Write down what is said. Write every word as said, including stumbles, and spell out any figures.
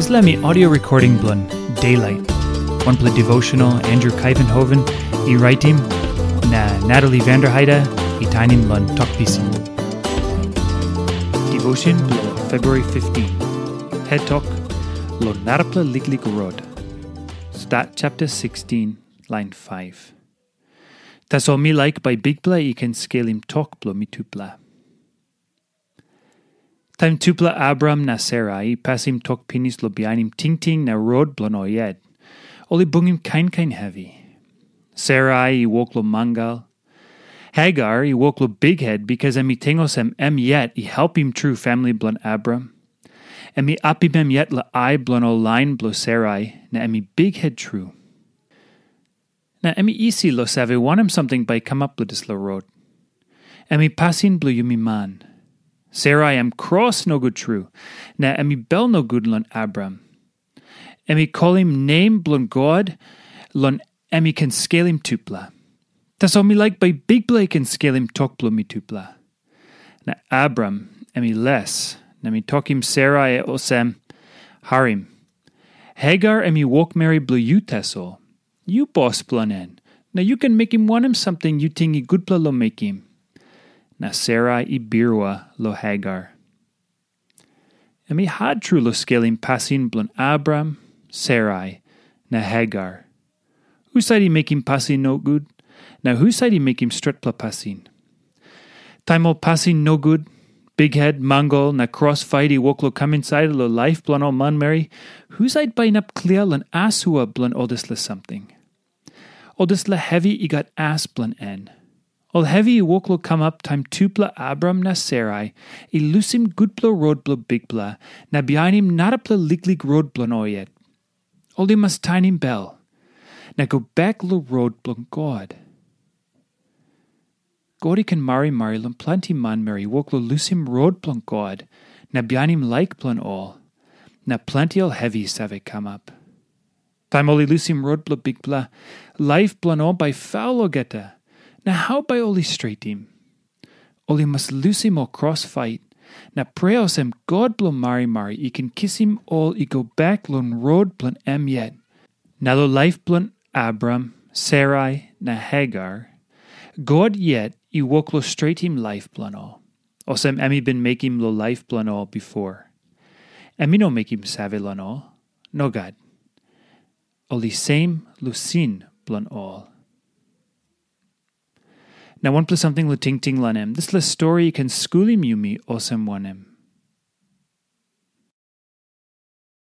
Dispela mi audio recording bilong Daylight. Wanpela devotional Andrew Kaivenhoven i raitim, na Natalie Vanderheide i tainim long Tok Pisin. Devotion bilong February fifteen. Head Tok, Long Narapela Liklik Rot. Stat chapter sixteen, line five. Tasol mi laik bai Bikpela i ken skelim tok bilong mitupela. Taim tupela Abraham na Sera i pasim tok pinis long bihainim tingting na rot bilong ol yet, ol i bungim kain kain hevi. Sera i wok long mangal. Hagar i wok long bikhet, bikas em i ting olsem em yet i helpim tru famili bilong Abraham. Em i apim em yet long ai bilong ol lain bilong Sera, na em i bikhet tru. Na em i isi long save wanem samting bai i kamap long dispela rot. Em i pasin bilong yumi man. Sera em kros nogut tru, na em i bel nogut long Abraham. Em i kolim nem bilong God, long em i ken skelim tupela. Tasol mi laik bai Bikpela i ken skelim tok bilong mitupela. Na Abraham em i les, na mi tokim Sera olsem, "Harim, Hagar em i wokmeri bilong yu tasol. Yu bos bilong en, na yu ken mekim wanem samting yu ting i gutpela long mekim." Na Sera i birua long Hagar. Em i hat tru long skelim pasin bilong Abraham, Sera, na Hagar. Husat i mekim pasin nogut, na husat i mekim stretpela pasin? Taim ol pasin nogut, bikhet, mangal, na kros fait i wok long kam insait long laip bilong ol manmeri, husat bai inap klia long asua bilong ol dispela samting? Ol dispela hevi i gat as bilong en. Ol hevi i wok long kamap taim tupela Abraham na Sera i lusim gutpela rot bilong Bikpela na bihainim narapela liklik rot bilong ol yet. Ol i mas tainim bel, na go bek long rot bilong God. God i ken marimari long planti manmeri i wok long lusim rot bilong God na bihainim laik bilong ol, na planti ol hevi i save kamap. Taim ol i lusim rot bilong Bikpela, laip bilong ol bai faul olgeta, na hau bai ol i stretim? Ol i mas lusim ol kros fait, na prea olsem God bilong marimari i ken kisim ol i go bek long rot bilong em yet. Na long laip bilong Abraham, Sera, na Hagar, God yet i wok long stretim laip bilong ol, olsem em i bin mekim long laip bilong ol bipo. Em i no mekim save long ol. Nogat. Ol i sem long sin bilong ol. Na wanpela samting long tingting long em, dispela stori i ken skulim yumi olsem wanem?